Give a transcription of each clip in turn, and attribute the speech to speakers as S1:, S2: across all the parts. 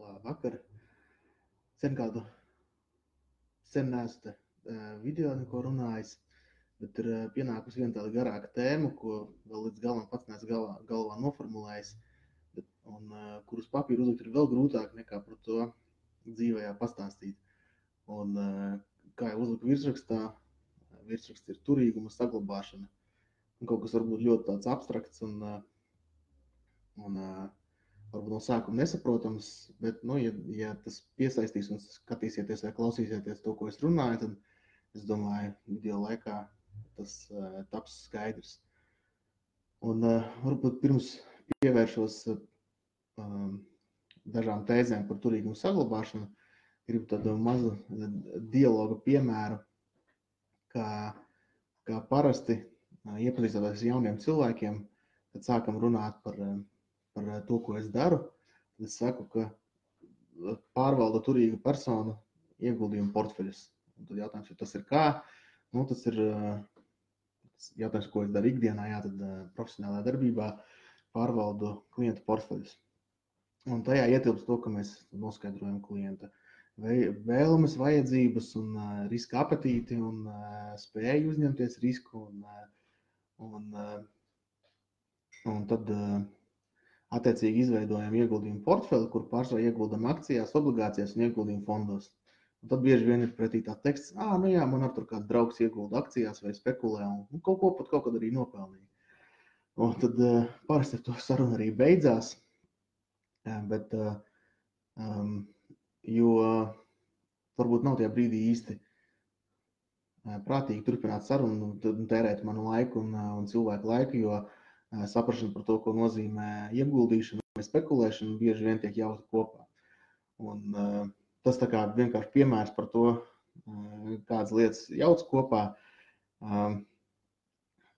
S1: Labvakar. Sen neesmu video neko runājis, bet ir pienākusi viena tāda garāka tēma, ko vēl līdz galam pats neesmu galvā noformulējis, un kurus papīru uzlikt ir vēl grūtāk nekā par to dzīvējā pastāstīt. Un kā jau uzliku virsrakstā, virsraksts ir turīguma saglabāšana. Un kaut kas varbūt ļoti tāds abstrakts un varbūt no sākuma nesaprotams, bet, ja tas piesaistīs un skatīsieties vai klausīsieties to, ko es runāju, tad es domāju, video laikā tas taps skaidrs. Un varbūt pirms pievēršos dažām tēzēm par turīgumu saglabāšanu, gribu tādu mazu dialoga piemēru, kā parasti iepazīstoties jauniem cilvēkiem, kad sākam runāt par to, ko es daru, tad es saku, ka pārvalda turīga persona ieguldījumu portfeļus. Un tad jautājums, ja tas ir kā? Tas ir jautājums, ko es daru ikdienā, tad profesionālā darbībā pārvaldu klientu portfeļus. Un tajā ietilpst to, ka mēs noskaidrojam klienta vēlmes, vajadzības un riska apetīti un spēju uzņemties risku un tad attiecīgi izveidojam ieguldījumu portfeli, kur pārsvarā ieguldam akcijās, obligācijās un ieguldījumu fondos. Un tad bieži vien ir pretī tā teksts, man ar tur kāds draugs iegulda akcijās vai spekulē un kaut kad arī nopelnīja. Un tad parasti ar to saruna arī beidzās, bet jo varbūt nav tajā brīdī īsti prātīgi turpināt sarunu un tērēt manu laiku un cilvēku laiku, jo saprašana par to, ko nozīmē ieguldīšana vai spekulēšana, bieži vien tiek jaukta kopā. Un tas tā kā vienkārši piemērs par to, kādas lietas jauc kopā,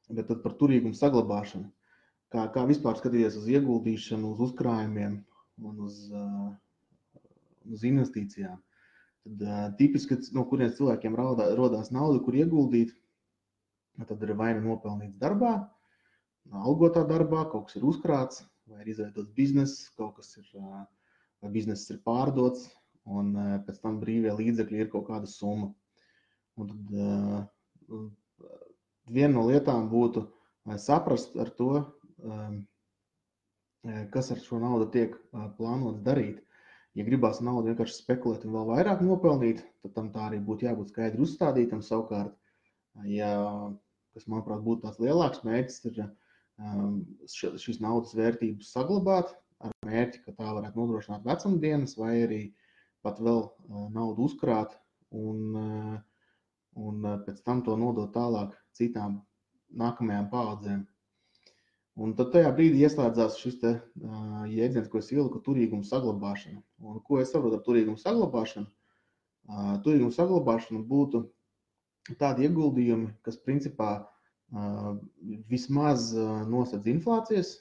S1: bet tad par turīgumu saglabāšanu. Kā vispār skatīties uz ieguldīšanu, uz uzkrājumiem un uz investīcijām. Tad tipiski, no kurienes cilvēkiem rodās nauda, kur ieguldīt, tad ir vai nu nopelnīts darbā, algotā darbā, kaut kas ir uzkrāts, vai ir izveidots bizness, vai bizness ir pārdots, un pēc tam brīvie līdzekļi ir kaut kāda summa. Un tad viena no lietām būtu saprast ar to, kas ar šo naudu tiek plānots darīt. Ja gribās naudu vienkārši spekulēt un vēl vairāk nopelnīt, tad tam tā arī būtu jābūt skaidri uzstādītam. Savukārt, kas, manuprāt, būtu tāds lielāks mērķis, ir šīs naudas vērtības saglabāt ar mērķi, ka tā varētu nodrošināt vecumdienas vai arī pat vēl naudu uzkrāt un pēc tam to nodot tālāk citām nākamajām paaudzēm. Un tad tajā brīdī ieslēdzās šis jēdziens, ko es ieliku, turīgumu saglabāšana. Un ko es saprotu ar turīgumu saglabāšanu? Turīgumu saglabāšana būtu tādi ieguldījumi, kas principā vismaz nosedz inflācijas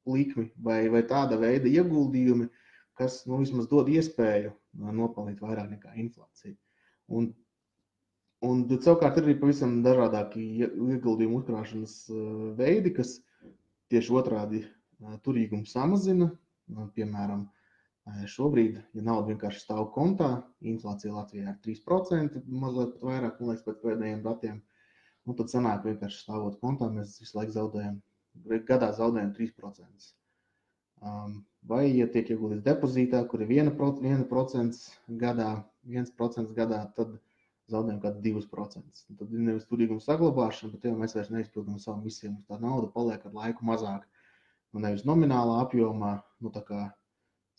S1: likmi vai tāda veida ieguldījumi, kas vismaz dod iespēju nopelnīt vairāk nekā inflācija. Un savukārt ir arī pavisam dažādāki ieguldījumu uzkrāšanas veidi, kas tieši otrādi turīgumu samazina. Piemēram, šobrīd, ja nauda vienkārši stāv kontā, inflācija Latvijā ir 3%, mazliet pat vairāk, man liekas, pēc pēdējiem datiem. Tad sanāk vienkārši stāvot kontā, mēs visu laiku gadā zaudējam 3%. Vai, ja tiek ieguldīts depozītā, kur ir 1% gadā, tad zaudējam kādu 2%. Tad ir nevis turīguma saglabāšana, bet jau mēs vairs neizpildām savu misiju. Tā nauda paliek ar laiku mazāk. Nevis nominālā apjomā, tā kā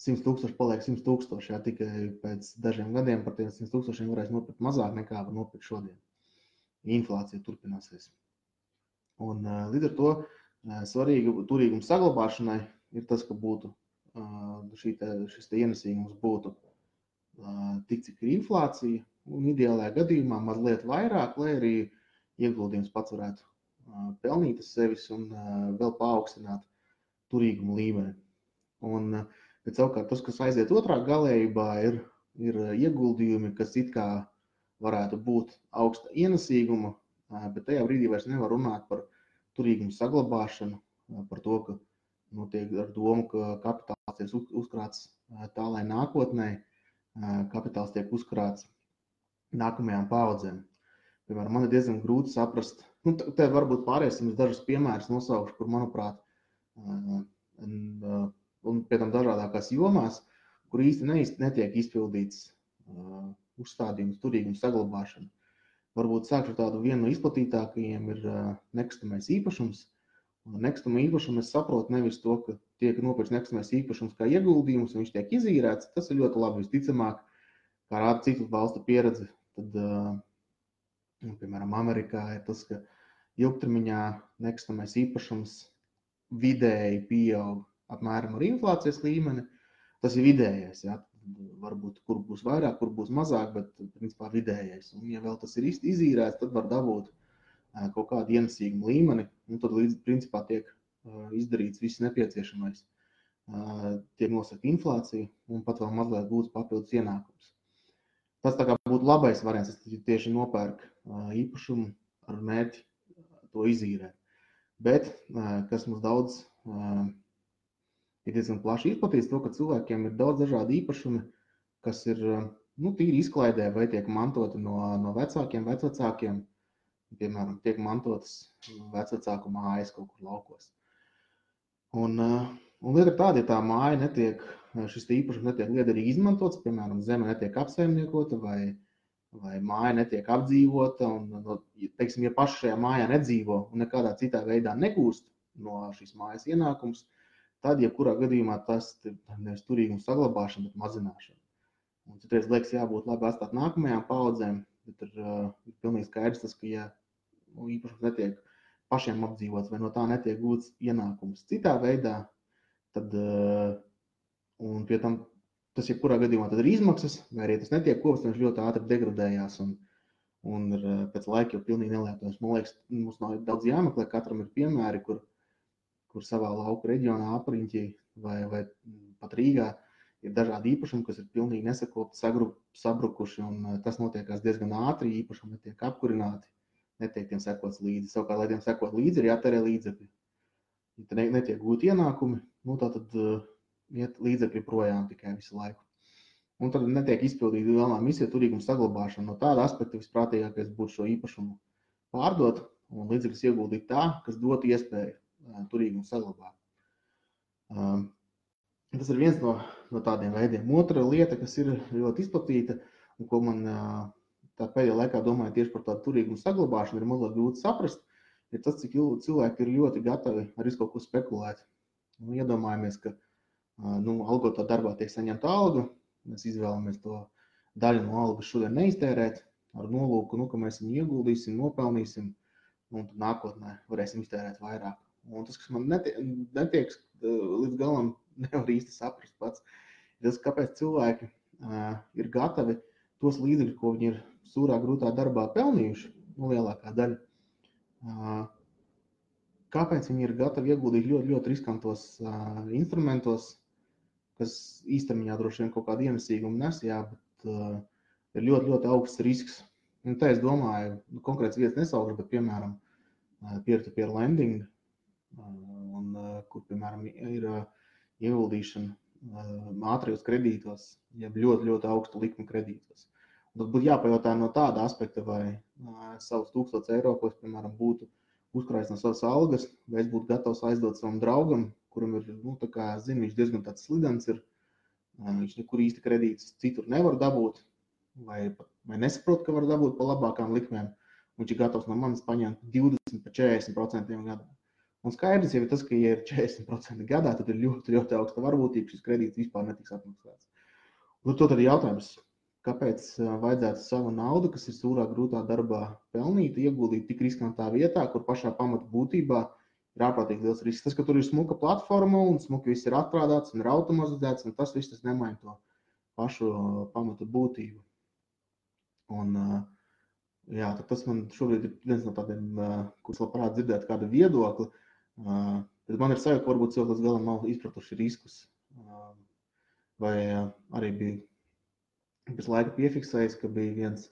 S1: 100 000 paliek 100 000, jā, tikai pēc dažiem gadiem par tiem 100 000 varēs nopirkt mazāk nekā var nopirkt šodien. Inflācija turpināsies. Un līdz ar to svarīgi turīguma saglabāšanai ir tas, ka būtu šis ienesīgums būtu tik, cik ir inflācija, un ideālajā gadījumā mazliet vairāk, lai arī ieguldījums pats varētu pelnīt sevis un vēl paaugstināt turīgumu līmeni. Bet savukārt tas, kas aiziet otrā galējībā, ir ieguldījumi, kas it kā varētu būt augsta ienesīguma, bet tajā brīdī vairs nevar runāt par turīgumu saglabāšanu, par to, ka notiek ar domu, ka kapitāls tiek uzkrāts tā, lai nākotnē kapitāls tiek uzkrāts nākamajām paudzēm. Piemēram, man ir diezgan grūti saprast, te varbūt pāriesim uz dažus piemērus nosaukšu, kur, manuprāt, un pie tam dažādākās jomās, kur īsti netiek izpildīts uzstādījums, turīgums, saglabāšana. Varbūt sākšu ar tādu vienu no izplatītākajiem ir nekustamais īpašums. Nekustamā īpašuma es saprotu nevis to, ka tiek nopirkts nekustamais īpašums kā ieguldījums, un viņš tiek izīrēts. Tas ir ļoti labi, visticamāk, kā rāda citu valstu pieredze. Tad, piemēram, Amerikā ir tas, ka ilgtermiņā nekustamais īpašums vidēji pieaug apmēram ar inflācijas līmeni. Tas ir vidējais, ja? Varbūt kur būs vairāk, kur būs mazāk, bet principā vidējais. Un ja vēl tas ir izīrēts, tad var dabūt kaut kādu ienesīgumu līmeni, un tad līdz principā tiek izdarīts viss nepieciešamais. Tiek nosakta inflācija un pat vēl mazliet būs papildus ienākums. Tas tā kā būtu labais variants, tas tieši nopērk īpašumu ar mērķi to izīrēt. Bet, kas mums daudz ir diezgan plaši izplatīts, to, ka cilvēkiem ir daudz dažādi īpašumi, kas ir tīri izklaidē vai tiek mantoti no vecākiem, vecvecākiem. Piemēram, tiek mantotas vecvecāku mājas kaut kur laukos. Un lieta ir tāda, ja tā māja netiek, šis īpašums netiek liederīgi izmantots, piemēram, zeme netiek apsaimniekota vai māja netiek apdzīvota, un, teiksim, ja paši šajā mājā nedzīvo un nekādā citā veidā negūst no šīs mājas ienākums, tad, jebkurā gadījumā tas ir nevis turīgums saglabāšana, bet mazināšana. Un citreiz liekas jābūt labi atstāt nākamajām paudzēm, bet ir pilnīgi skaidrs tas, ka ja īpašums netiek pašiem apdzīvots vai no tā netiek gūts ienākums citā veidā, tad, un pie tam tas jebkurā gadījumā tad ir izmaksas, vai arī tas netiek kopts, viņš ļoti ātri degradējās un ir pēc laika jau pilnīgi nelietojams. Man liekas, mums nav daudz jāmeklē, katram ir piemēri, kur savā lauka reģionā apriņķī vai pat Rīgā ir dažādi īpašumi, kas ir pilnīgi nesakopti, sabrukuši, un tas notiekās diezgan ātri, īpašumi netiek apkurināti, netiek tiem sekots līdzi. Savukārt, lai tiem sekot līdzi, ir jātērē līdzekļi. Ja te netiek gūti ienākumi, tad iet līdzekļi projām tikai visu laiku. Un tad netiek izpildīta galvenā misija turīguma saglabāšana. No tāda aspekta visprātīgākais būtu šo īpašumu pārdot un līdzekļus ieguldīt tā, kas dot iespēju turīgumu saglabāt. Tas ir viens no tādiem veidiem. Otra lieta, kas ir ļoti izplatīta un ko man tā pēdējā laikā domāju tieši par tādu turīgumu saglabāšanu, ir mazliet grūti saprast, ir tas, cik cilvēki ir ļoti gatavi ar visu kaut ko spekulēt. Iedomājamies, ka algotā darbā tiek saņemta alga, mēs izvēlamies to daļu no algas šodien neiztērēt ar nolūku, ka mēs viņu ieguldīsim, nopelnīsim un tad nākotnē varēsim iztērēt vairāk. Un tas, kas man netiek līdz galam nevar īsti saprast pats, ir tas, kāpēc cilvēki ir gatavi tos līdzekļus, ko viņi ir sūrā grūtā darbā pelnījuši, lielākā daļa, kāpēc viņi ir gatavi ieguldīt ļoti, ļoti riskantos instrumentos, kas īstermiņā droši vien kaut kādu ienesīgumu nes, bet ir ļoti, ļoti augsts risks. Un tā es domāju, konkrēts vietas nesaukšu, bet piemēram peer-to-peer lending, kur, piemēram, ir ieguldīšana ātrijos kredītos, jeb ļoti, ļoti augstu likmi kredītos. Un tad būtu jāpajautā no tāda aspekta, vai savus 1000 eiro, ko es, piemēram, būtu uzkrājis no savas algas, vai es būtu gatavs aizdot savam draugam, kuram ir, viņš diezgan tāds slidens ir, viņš nekur īsti kredītus citur nevar dabūt, vai nesaprot, ka var dabūt pa labākām likmēm, viņš ir gatavs no manis paņemt 20–40% gadā. Un skaidrs jau ir tas, ka, ja ir 40% gadā, tad ir ļoti, ļoti augsta varbūtība, šis kredīts vispār netiks atmaksāts. Un to tad ir jautājums, kāpēc vajadzētu savu naudu, kas ir sūrā grūtā darbā pelnīta, ieguldīt tik riskantā vietā, kur pašā pamata būtībā ir ārprātīgi liels risks. Tas, ka tur ir smuka platforma un smuki viss ir atstrādāts un ir automatizēts, un tas viss nemaina to pašu pamata būtību. Un tad tas man šobrīd ir viens no tādiem, kurus labprāt dzirdēt kādu viedokli. Bet man ir sajūta, ka varbūt cilvēki līdz galam nav izpratuši riskus. Vai arī bija pēc laika piefiksējis, ka bija viens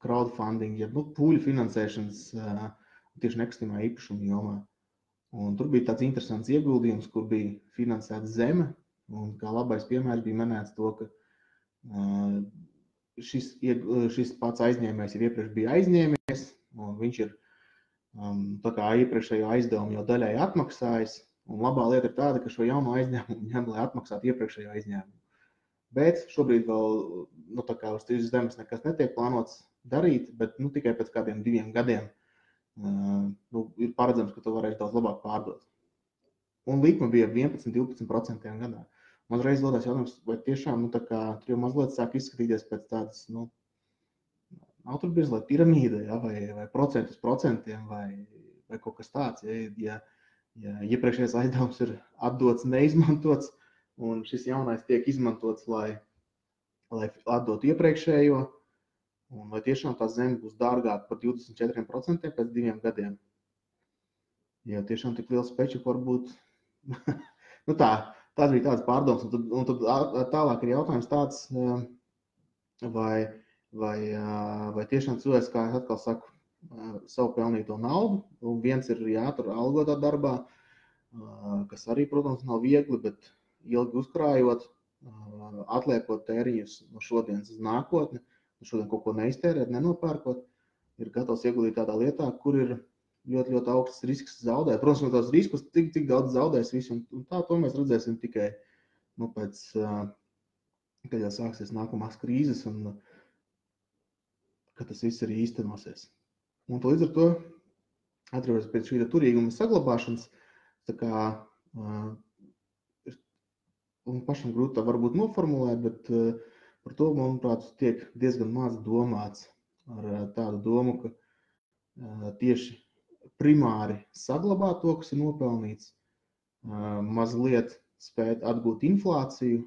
S1: crowdfunding, pūļu finansēšanas tieši nekustamā īpašuma jomā. Un tur bija tāds interesants ieguldījums, kur bija finansēta zeme. Un kā labais piemērs bija minēts to, ka šis pats aizņēmējs jau iepriekš bija aizņēmies, un viņš ir tā kā iepriekšējo aizdevumu jau daļai atmaksājis. Un labā lieta ir tāda, ka šo jauno aizņēmumu ņem, lai atmaksātu iepriekšējo aizņēmumu. Bet šobrīd vēl tā kā uz tieši zemes nekas netiek plānots darīt, bet tikai pēc kādiem 2 gadiem ir paredzams, ka to varēs daudz labāk pārdot. Un likme bija 11–12% gadā. Man reiz rodās jautājums, vai tiešām tur jau mazliet sāk izskatīties pēc tādas, nav tur bieži, lai piramīda, ja, vai procentu uz procentiem, vai kaut kas tāds. Ja iepriekšējais aizdevums ir atdots, neizmantots, un šis jaunais tiek izmantots, lai atdotu iepriekšējo, un vai tiešām tā zeme būs dārgāka par 24% pēc 2 gadiem. Ja tiešām tik liels peču var būt. Tās bija tādas pārdomas, un tad tālāk ir jautājums tāds, vai tiešām cilvēks, kā es atkal saku, savu pelnīto naudu, un viens ir jātur algotā darbā, kas arī, protams, nav viegli, bet ilgi uzkrājot, atliekot tēriņus no šodienas uz nākotni, šodien kaut ko neiztērēt, nenopērkot, ir gatavs ieguldīt tādā lietā, kur ir ļoti, ļoti augsts risks zaudēt. Protams, no tās riskus tik daudz zaudēs visu, un to mēs redzēsim tikai pēc, kad jau sāksies nākamās krīzes, un kad tas viss arī īstenosies. Un līdz ar to, atceroties pēc šī turīguma saglabāšanas, tā kā pašam grūti tā varbūt noformulēt, bet par to, manuprāt, tiek diezgan maz domāts ar tādu domu, ka tieši primāri saglabāt to, kas ir nopelnīts, mazliet spēt atgūt inflāciju,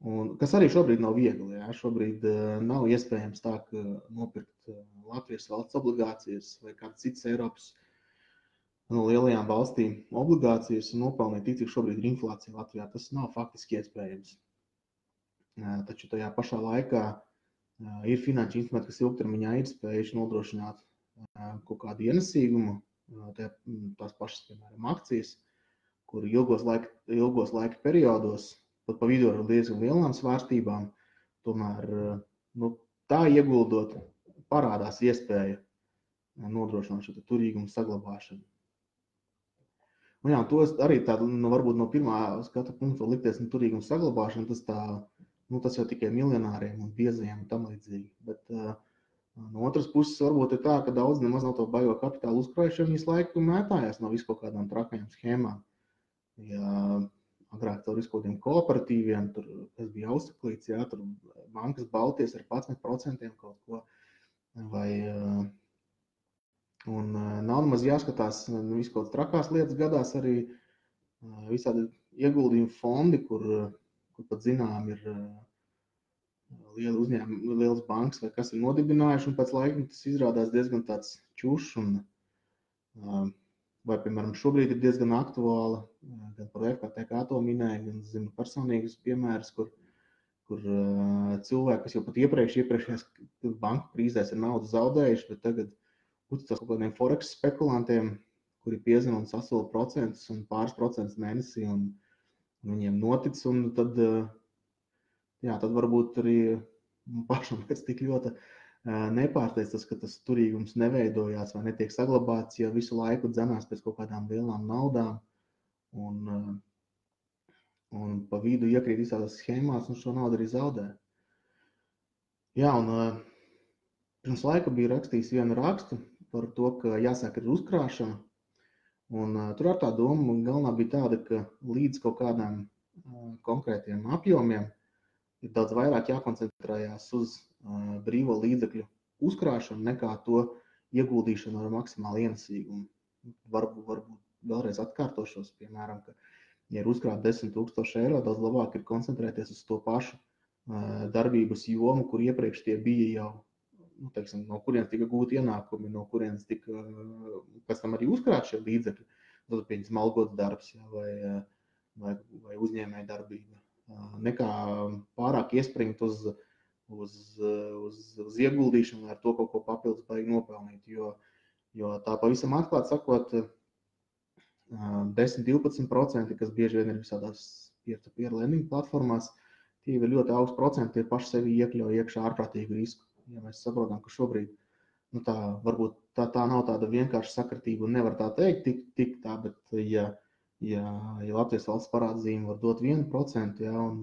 S1: un, kas arī šobrīd nav viegli. Ja? Šobrīd nav iespējams tā, ka nopirkt Latvijas valsts obligācijas vai kādas citas Eiropas no lielajām valstīm obligācijas un nopelnīt tik, cik šobrīd ir inflācija Latvijā. Tas nav faktiski iespējams. Taču tajā pašā laikā ir finanšu instrumenti, kas ilgtermiņā ir spējuši nodrošināt kaut kādu ienesīgumu, tās pašas, piemēram, akcijas, kur ilgos laika periodos, pat pa vidu ar diezgan lielām svārstībām, tomēr tā ieguldot parādās iespēja nodrošināt šo turīgumu saglabāšanu. Un jā, to arī tādu, varbūt no pirmā skatu punkta likties turīgumu saglabāšana, tas jau tikai miljonāriem un biezajiem un tam līdzīgi. Bet no otras puses varbūt ir tā, ka daudz nemaz nav to baigo kapitālu uzkrājuši, viņas laiku mētājās no visu kaut kādām trakajām schēmām. Ja agrāk tur visu kaut kādiem kooperatīviem, tur, kas bija Austraklīts, jā, tur bankas balties ar 11% kaut ko, un nav nemaz jāskatās visu kaut trakās lietas gadās arī visādi ieguldījumu fondi, kur pat zinām ir lieli uzņēmumi, lielas bankas vai kas ir nodibinājuši, un pēc laika tas izrādās diezgan tāds čušs, un vai, piemēram, šobrīd ir diezgan aktuāla, gan par FKTK to minēja, gan zinu personīgas piemēras, kur cilvēki, kas jau pat iepriekšējās banku krīzēs ir naudu zaudējuši, bet tagad uzticās kaut kādiem forex spekulantiem, kuri piezina un sasola procentus un pāris procentus mēnesī, un viņiem notic, un tad varbūt arī pašam pēc tik ļoti nepārsteidz tas, ka tas turīgums neveidojās vai netiek saglabāts, jo visu laiku dzenās pēc kaut kādām lielām naudām, un pa vidu iekrīt visādās schēmās, un šo naudu arī zaudē. Jā, un pirms laika bija rakstījis vienu rakstu par to, ka jāsāk ir uzkrāšana, un tur ar tā doma galvenā bija tāda, ka līdz kaut kādām konkrētiem apjomiem ir daudz vairāk jākoncentrējās uz brīvo līdzekļu uzkrāšanu nekā to ieguldīšanu ar maksimālu ienesīgumu. Varbūt vēlreiz atkārtošos, piemēram, ka, ja ir uzkrāt 10 000 eiro, daudz labāk ir koncentrēties uz to pašu darbības jomu, kur iepriekš tie bija jau, no kurienes tika gūti ienākumi, no kurienes tika pēc tam arī uzkrāt šie līdzekļi. Tad pieņemsim algots darbs, ja, vai uzņēmēja darbība. Nekā pārāk iespringt uz ieguldīšanu, ar to kaut ko papildus baigi nopelnīt, jo tā pavisam atklāt sakot, 10-12%, kas bieži vien ir visādās peer-to-peer lending platformās, tie ir ļoti augsts procenti, tie paši sevi iekļauj iekšā ārprātīgu risku. Ja mēs saprotam, ka šobrīd varbūt tā nav tāda vienkārša sakritība un nevar tā teikt tik tā, bet ja Latvijas valsts parādzīme var dot 1%, ja, un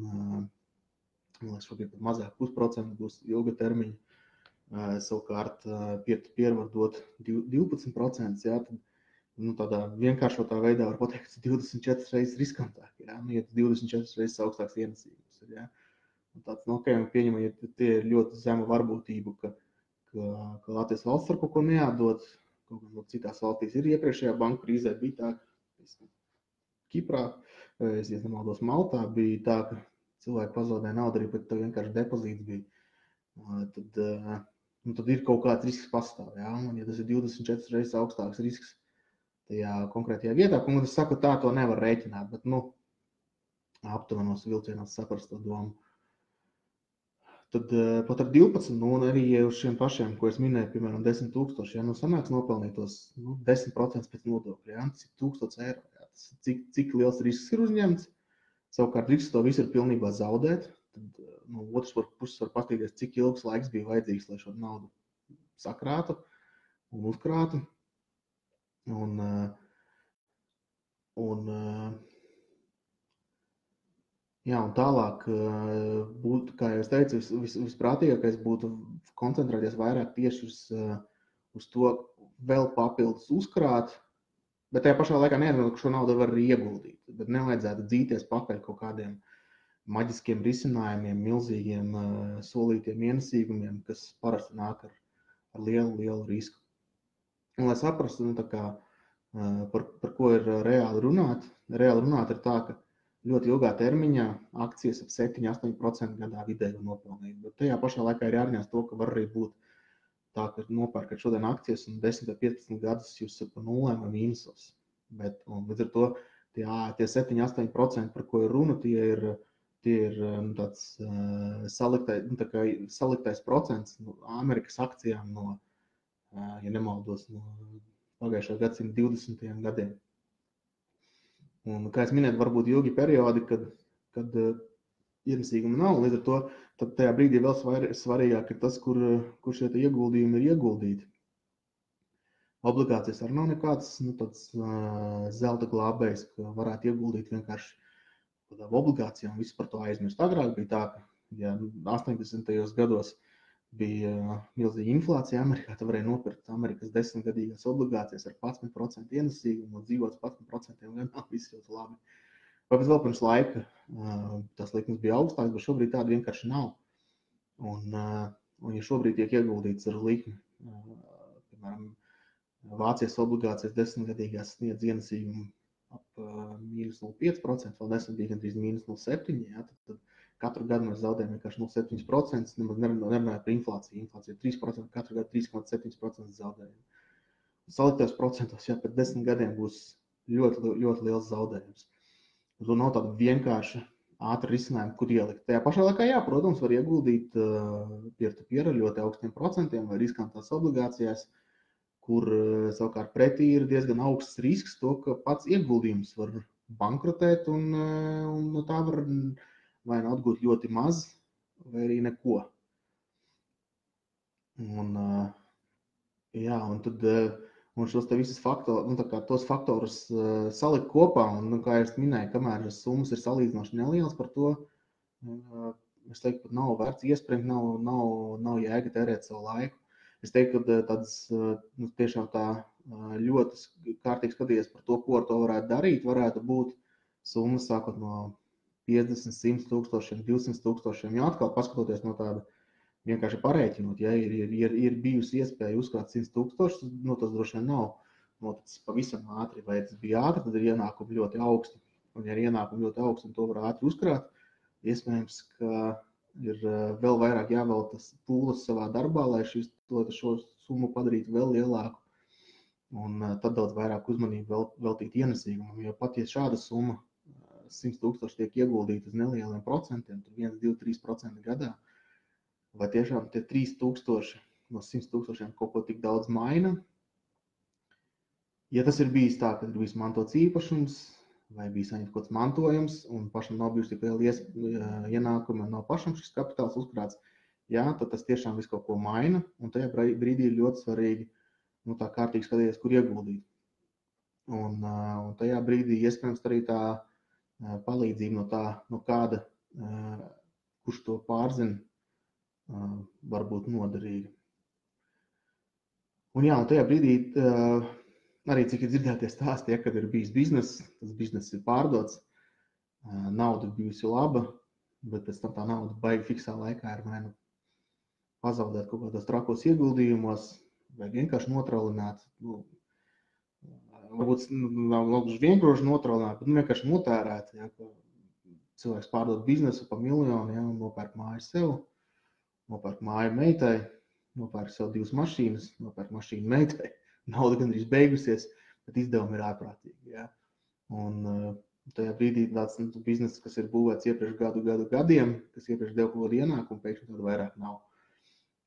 S1: šobrīd pat mazāk 0,5% būs ilga termiņa, savukārt peer-to-peer var dot 12%, ja, tad tādā vienkāršotā veidā var pateikt, ka 24 reizes riskantāk, ja, ja 24 reizes augstāks ienesīgums ir, ja. Un tāds, pieņemam, ja tie ir ļoti zema varbūtība, ka Latvijas valsts var kaut ko neatdot, kaut kā citās valstīs ir iepriekšējā banku krīzē bija tā, ka Kiprā, es nemaldos Maltā, bija tā, ka cilvēki pazaudēja naudu arī, bet vienkārši depozīts bija. Tad ir kaut kāds risks pastāv, ja? Un ja tas ir 24 reizes augstāks risks tajā konkrētajā vietā, un es saku, tā to nevar rēķināt, bet, aptuvenos vilcienos saprast to domu. Tad pat ar 12, un arī uz šiem pašiem, ko es minēju, piemēram, 10,000, ja sanāks nopelnīt tos 10% pēc nodokļa, ja, tas ir 1,000 eiro, ja, tas cik liels risks ir uzņemts, savukārt risks to visu ir pilnībā zaudēt, tad no otras puses var paskatīties, cik ilgs laiks bija vajadzīgs, lai šo naudu sakrātu un uzkrātu, jā, un tālāk būtu, kā jau es teicu, visprātīgākais būtu koncentrēties vairāk tieši uz to vēl papildus uzkrāt, bet tajā pašā laikā neatzīmēt, ka šo naudu var arī ieguldīt, bet nevajadzētu dzīties pakaļ kaut kādiem maģiskiem risinājumiem, milzīgiem solītiem ienesīgumiem, kas parasti nāk ar lielu risku. Un, lai saprastu, par ko ir reāli runāt ir tā, ka ļoti ilgā termiņā akcijas ap 7-8% gadā vidēji nopelnīt, bet tajā pašā laikā ir jārunās to, ka var arī būt tā, ka nopērkat šodien akcijas un 10 vai 15 gadus jūs esat pa nulēm vai mīnusos. Līdz ar to tie 7-8%, par ko ir runa, tie ir tāds saliktais procents Amerikas akcijām no, ja nemaldos, no pagājušā gadsimta 20. gadiem. Un, kā es minēju, varbūt ilgi periodi, kad ienesīguma nav, līdz ar to tad tajā brīdī vēl svarīgāk ir tas, kur šie ieguldījumi ir ieguldīti. Obligācijas arī nav nekāds tāds zelta glābējs, ka varētu ieguldīt vienkārši obligācijām, visu par to aizmirst. Agrāk bija tā, ka ja 80. gados bija milzīga inflācija Amerikā, tad varēja nopirkt Amerikas 10-gadīgās obligācijas ar 11% ienesīgumu un dzīvot 11% gadā, viss ļoti labi. Vai vēl pirms laika tas likums bija augstāks, bet šobrīd tāda vienkārši nav. Un ja šobrīd tiek ieguldīts ar likmi, piemēram, Vācijas obligācijas 10-gadīgās sniedz ienesīgumu ap -0,5%, vēl nesen bija gandrīz -0,7%, ja, tad katru gadu mēs zaudējam vienkārši 0,7%, nemaz nerunājot par inflāciju. Inflācija ir 3%, katru gadu 3,7% zaudējumi. Saliktajos procentos, ja pēc 10 gadiem būs ļoti, ļoti liels zaudējums. Un nav tāda vienkārša ātra risinājuma, kur ielikt. Tajā pašā laikā, jā, protams, var ieguldīt peer-to-peer ar ļoti augstiem procentiem vai riskantās obligācijās, kur savukārt pretī ir diezgan augsts risks to, ka pats ieguldījums var bankrotēt un no tā var vai nu atgūt ļoti maz, vai arī neko. Un šos te visus tos faktorus salikt kopā, un, kā es minēju, kamēr summas ir salīdzinoši nelielas par to, es teiktu, pat nav vērts iespringt, nav jēga tērēt savu laiku. Es teiktu, ka tāds tiešām tā ļoti kārtīgi skatīties par to, ko ar to varētu darīt, varētu būt summas sākot no 50, 100 tūkstošiem, 200 tūkstošiem, jo atkal paskatoties no tāda vienkārši parēķinot, ja ir bijusi iespēja uzkrāt 100 tūkstošus, tas droši vien nav noticis pavisam ātri, vai tas bija ātri, tad ir ienākumi ļoti augsti. Un ja ir ienākumi ļoti augsti un to var ātri uzkrāt, iespējams, ka ir vēl vairāk jāveltas pūles savā darbā, lai šo summu padarītu vēl lielāku. Un tad daudz vairāk uzmanību veltīt ienesīgumam, jo pat ja šāda summa 100 tūkstoši tiek ieguldīti uz nelieliem procentiem, tur 1, 2, 3% gadā, vai tiešām tie 3 tūkstoši no 100 tūkstošiem kaut ko tik daudz maina? Ja tas ir bijis tā, ka ir bijis mantots īpašums vai bijis saņemts kaut kāds mantojums un pašam nav bijusi tik liela ienākuma, nav pašam šis kapitāls uzkrāts, jā, tad tas tiešām visu kaut ko maina, un tajā brīdī ir ļoti svarīgi tā kārtīgi skatīties, kur ieguldīt. Un tajā brīdī iespējams arī tā palīdzība no kāda, kurš to pārzina, var būt noderīga. Un jā, un tajā brīdī arī cik ir dzirdētie stāsti, kad ir bijis bizness, tas bizness ir pārdots, nauda bijusi laba, bet pēc tam tā nauda baigi fiksā laikā ir vai nu pazaudēt kaut kādos trakos ieguldījumos, vai vienkārši notralināt. Varbūt nav gluži vienkārši notralināt, bet vienkārši notērēt. Ja, cilvēks pārdod biznesu pa miljonu, ja, un nopērk māju sev, nopērk māju meitai, nopērk sev 2 mašīnas, nopērk mašīnu meitai. Nauda gandrīz beigusies, bet izdevumi ir ārprātīgi. Ja. Un tajā brīdī tāds bizness, kas ir būvēts iepriekš gadiem, kas iepriekš deva kaut kādu ienākumu, pēkšņi tādu vairāk nav.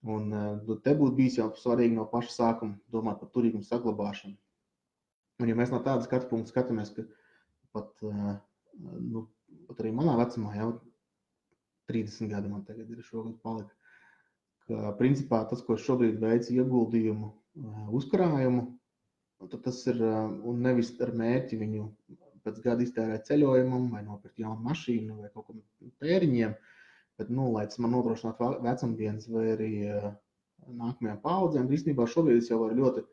S1: Un te būtu bijis jau svarīgi no paša sākuma domāt par turīgumu saglabāšanu. Un ja mēs no tāda skatu punkta skatāmies, ka pat arī manā vecumā, jau 30 gadi man tagad ir šogad palika, ka principā tas, ko es šobrīd veicu ieguldījumu, uzkrājumu, tad tas ir, un nevis ar mērķi viņu pēc gada iztērēt ceļojumam, vai nopirkt jaunu mašīnu, vai kaut kādiem tēriņiem, bet, lai tas man nodrošinātu vecumdienas vai arī nākamajām paudzēm, īstenībā šobrīd es jau varu ļoti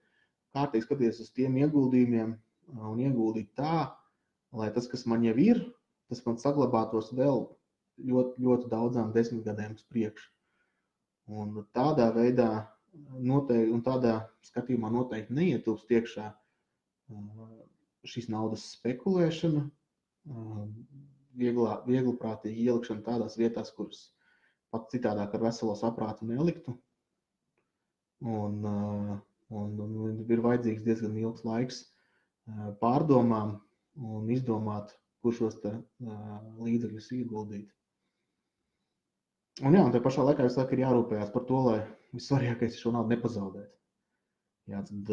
S1: kārtīgi skatīties uz tiem ieguldījumiem un ieguldīt tā, lai tas, kas man jau ir, tas man saglabātos vēl ļoti, ļoti daudzām 10 gadiem uz priekšu. Un tādā veidā noteikti, un tādā skatījumā noteikti neietilpst iekšā šīs naudas spekulēšana, viegliprātīgi ielikšana tādās vietās, kuras pat citādāk ar veselo saprātu neliktu. Un ir vajadzīgs diezgan ilgs laiks pārdomām un izdomāt, kur šos līdzekļus ieguldīt. Un jā, un tajā pašā laikā visu laiku ir jārūpējās par to, lai vissvarīgākais šo naudu nepazaudēt. Jā, tad,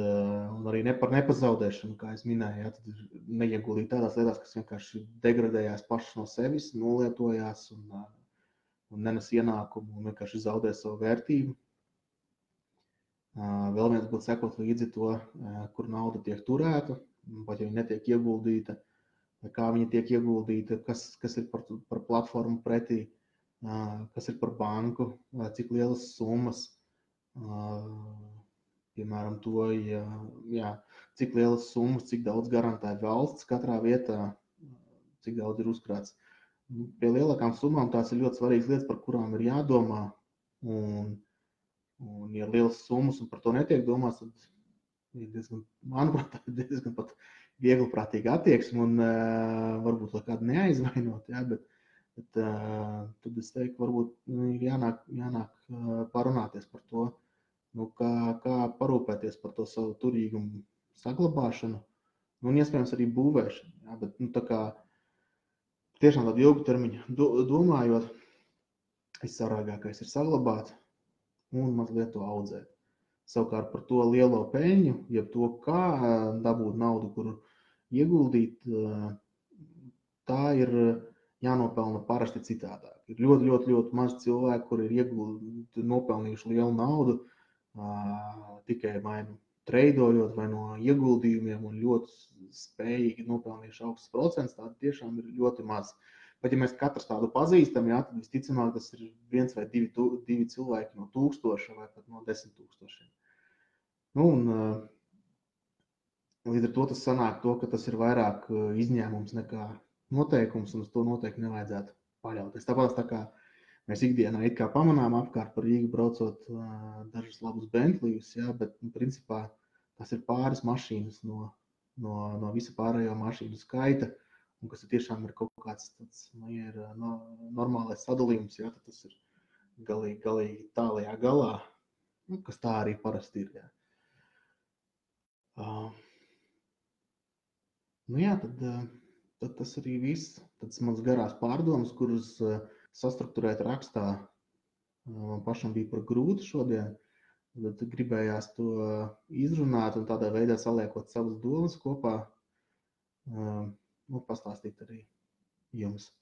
S1: un arī par nepazaudēšanu, kā es minēju, jā, tad ir neieguldīt tādās lietās, kas vienkārši degradējās pašas no sevis, nolietojās un nenes ieņēmumu un vienkārši zaudē savu vērtību. Vēl viens būtu sekot līdzi to, kur nauda tiek turēta, vai ja viņa netiek ieguldīta, vai kā viņa tiek ieguldīta, kas ir par platformu pretī, kas ir par banku, cik lielas summas, piemēram, to, cik lielas summas, cik daudz garantē valsts katrā vietā, cik daudz ir uzkrāts. Pie lielākām summām tās ir ļoti svarīgas lietas, par kurām ir jādomā, un ja ir lielas summas un par to netiek domāts, tad ir diezgan, manuprāt, diezgan pat viegliprātīga attieksme un varbūt lai kādu neaizvainot, ja, bet tad es teiktu, varbūt ir jānāk parunāties par to, kā parūpēties par to savu turīgumu saglabāšanu un iespējams arī būvēšanu. Ja, bet tā kā tiešām tādu ilgu termiņu domājot, vissvarīgākais ir saglabāt un mazliet to audzēt. Savukārt par to lielo peļņu, jeb to, kā dabūt naudu, kuru ieguldīt, tā ir jānopelna parasti citādāk. Ir ļoti, ļoti, ļoti maz cilvēku, kuri ir nopelnījuši lielu naudu, tikai vai nu treidojot vai no ieguldījumiem un ļoti spējīgi nopelnījuši augstus procentus, tādi tiešām ir ļoti maz. Bet ja mēs katrs tādu pazīstam, jā, tad visticamāk tas ir 1 vai 2 cilvēki no 1000 vai pat no 10 000. Līdz ar to tas sanāk to, ka tas ir vairāk izņēmums nekā noteikums, un uz to noteikti nevajadzētu paļauties. Tāpēc tā kā mēs ikdienā it kā pamanām apkārt par Rīgu braucot dažus labus Bentleyus, jā, bet principā tas ir pāris mašīnas no visa pārējo mašīnu skaita, un kas tiešām ir kaut kāds tāds, ir normālais sadalījums, jā, tad tas ir galīgi tālajā galā, kas tā arī parasti ir. Jā. Tad tas arī viss. Tas mans garās pārdomas, kuras sastrukturēt rakstā man pašam bija par grūti šodien, Tad gribējās to izrunāt un tādā veidā saliekot savas domas kopā, pastāstīt arī jums.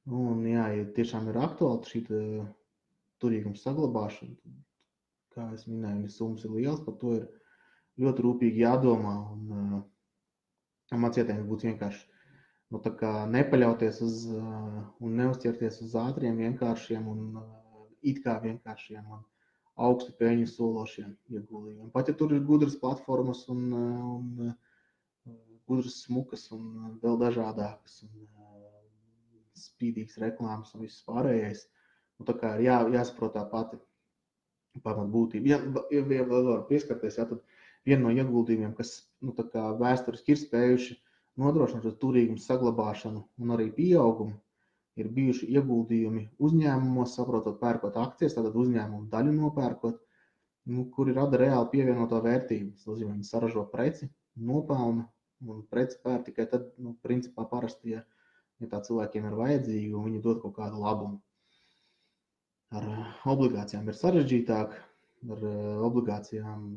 S1: Un jā, ja tiešām ir aktuāli šī turīguma saglabāšana, tad, kā es minēju, ja summas ir liels, par to ir ļoti rūpīgi jādomā. Un mans ieteikums būtu vienkārši nepaļauties uz un neuzķerties uz ātriem, vienkāršiem un it kā vienkāršiem un augstu peļņu sološiem ieguldījumiem. Pat ja tur ir gudras platformas un gudras smukas un vēl dažādākas un spīdīgas reklāmas un viss pārējais, tā kā ir jāsaprot tā pati pamat būtība. Ja vēl var pieskarties, tad viena no ieguldījumiem, kas vēsturiski ir spējuši nodrošināt turīgumu saglabāšanu un arī pieaugumu, ir bijuši ieguldījumi uzņēmumos, saprotot, pērkot akcijas, tātad uzņēmumu daļu nopērkot, kuri rada reāli pievienoto vērtību. Tas nozīmē, viņi saražo preci, nopelna un preci pērk tikai tad, principā parasti, ja tā cilvēkiem ir vajadzīga un viņi dod kaut kādu labumu. Ar obligācijām ir sarežģītāk, ar obligācijām,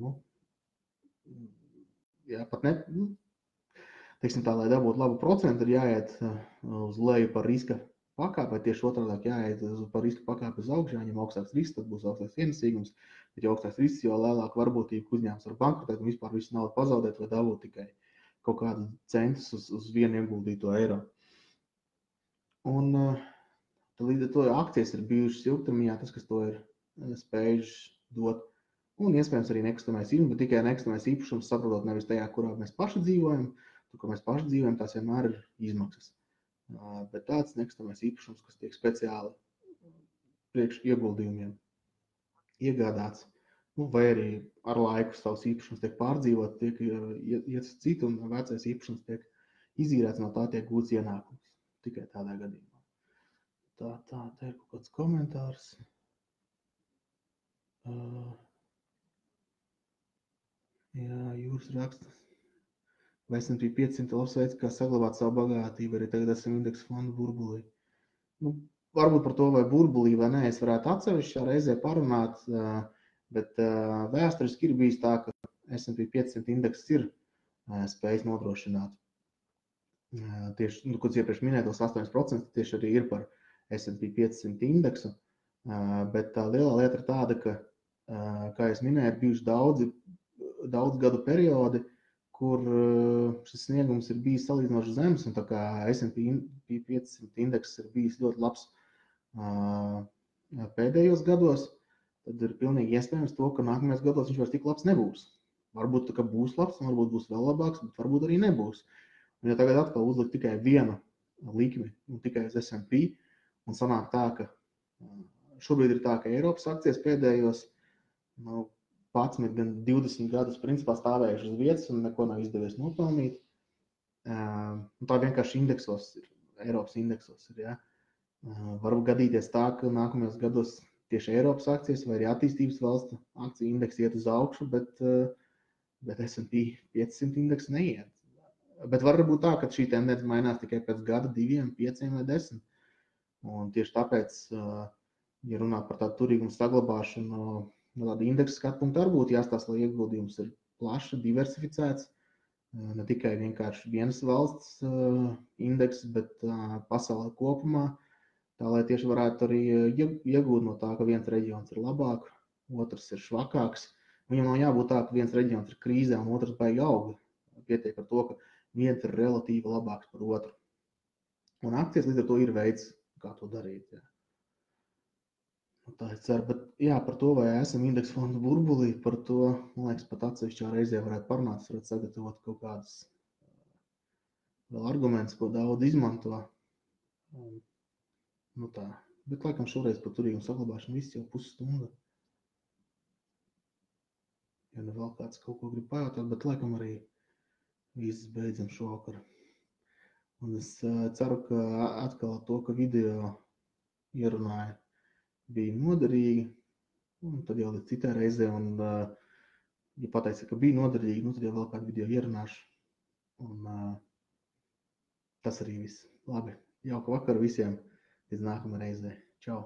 S1: pat ne, teiksim tā, lai dabūtu labu procentu, ir jāiet uz leju par riska pakāpi, vai tieši otrādāk jāiet par riska pakāpi uz augšu, jāņem augstāks risks, tad būs augstāks ienesīgums, bet ja augstāks risks, jo lielāka varbūtība, ka uzņēmums var bankrotēt un vispār visu naudu pazaudēt vai dabūt tikai kaut kādu centus uz vienu ieguldīto eiro. Un līdz ar to akcijas ir bijušas ilgtermiņā, tas, kas to ir spējuši dot. Un iespējams arī nekustamais īpašums, bet tikai nekustamais īpašums saprotot nevis tajā, kurā mēs paši dzīvojam, tur, kur mēs paši dzīvojam, tās vienmēr ir izmaksas. Bet tāds nekustamais īpašums, kas tiek speciāli priekš ieguldījumiem iegādāts, vai arī ar laiku savs īpašums tiek pārdzīvot, tiek iet uz citu un vecais īpašums tiek izīrēts, no tā tiek gūts ienākums. Tikai tādā gadījumā. Tā ir kaut kāds komentārs. Jā, Jūras raksta. Vai S&P 500 labs veids, kā saglabāt savu bagātību, arī tagad esam indeksu fondu burbulī. Varbūt par to, vai burbulī vai nē, es varētu atsevišķā reizē parunāt, bet vēsturiski ir bijis tā, ka S&P 500 indeks ir spējis nodrošināt. Tieši, ko iepriekš minētos 8% tieši arī ir par S&P 500 indeksu, bet tā lielā lieta ir tāda, ka, kā es minēju, ir bijuši daudz gadu periodi, kur šis sniegums ir bijis salīdzinoši zems, un tā kā S&P 500 indeks ir bijis ļoti labs pēdējos gados, tad ir pilnīgi iespējams to, ka nākamajos gados viņš vairs tik labs nebūs. Varbūt tā kā būs labs, varbūt būs vēl labāks, bet varbūt arī nebūs. Un ja tagad atkal uzlikt tikai vienu likmi un tikai uz S&P, un sanāk tā, ka šobrīd ir tā, ka Eiropas akcijas pēdējos 11, gan 20 gadus principā stāvējuši uz vietas un neko nav izdevies nopelnīt. Tā vienkārši indeksos ir, Eiropas indeksos ir, ja. Var gadīties tā, ka nākamajos gados tieši Eiropas akcijas vai arī attīstības valstu akciju indeksi iet uz augšu, bet S&P 500 indeks neiet. Bet var būt tā, ka šī tendence mainās tikai pēc gada, 2, 5 vai 10. Un tieši tāpēc, ja runā par tādu turīgumu saglabāšanu, no tāda indeksa skatu punkta arī būtu jāstāsta, lai ieguldījums ir plaši diversificēts, ne tikai vienkārši vienas valsts indeks, bet pasaulē kopumā, tā lai tieši varētu arī iegūt no tā, ka viens reģions ir labāk, otrs ir švakāks. Viņam nav jābūt tā, ka viens reģions ir krīzē un otrs baigi aug. Pietiek ar to, ka viens ir relatīvi labāks par otru. Un akcijas līdz ar to ir veids, kā to darīt. Jā. Tā es ceru, bet jā, par to, vai esam indeksu fondu burbulī, par to, man liekas, pat atsevišķā reizē varētu parunāt, varētu sagatavot kaut kādus vēl argumentus, ko daudz izmanto. Tā. Bet laikam šoreiz par turīgumu saglabāšanu viss jau pusstunda. Ja nu vēl kāds kaut ko grib pajautāt, bet laikam arī viss beidzam šovakar. Un es ceru, ka atkal to, ka video ierunāja, bija noderīgi, un tad jau līdz citai reizē, un ja pateica, ka bija noderīgi, tad jau vēl kādu video ierunāšu, un tas arī viss. Labi, jauka vakara visiem, līdz nākamā reizē. Čau!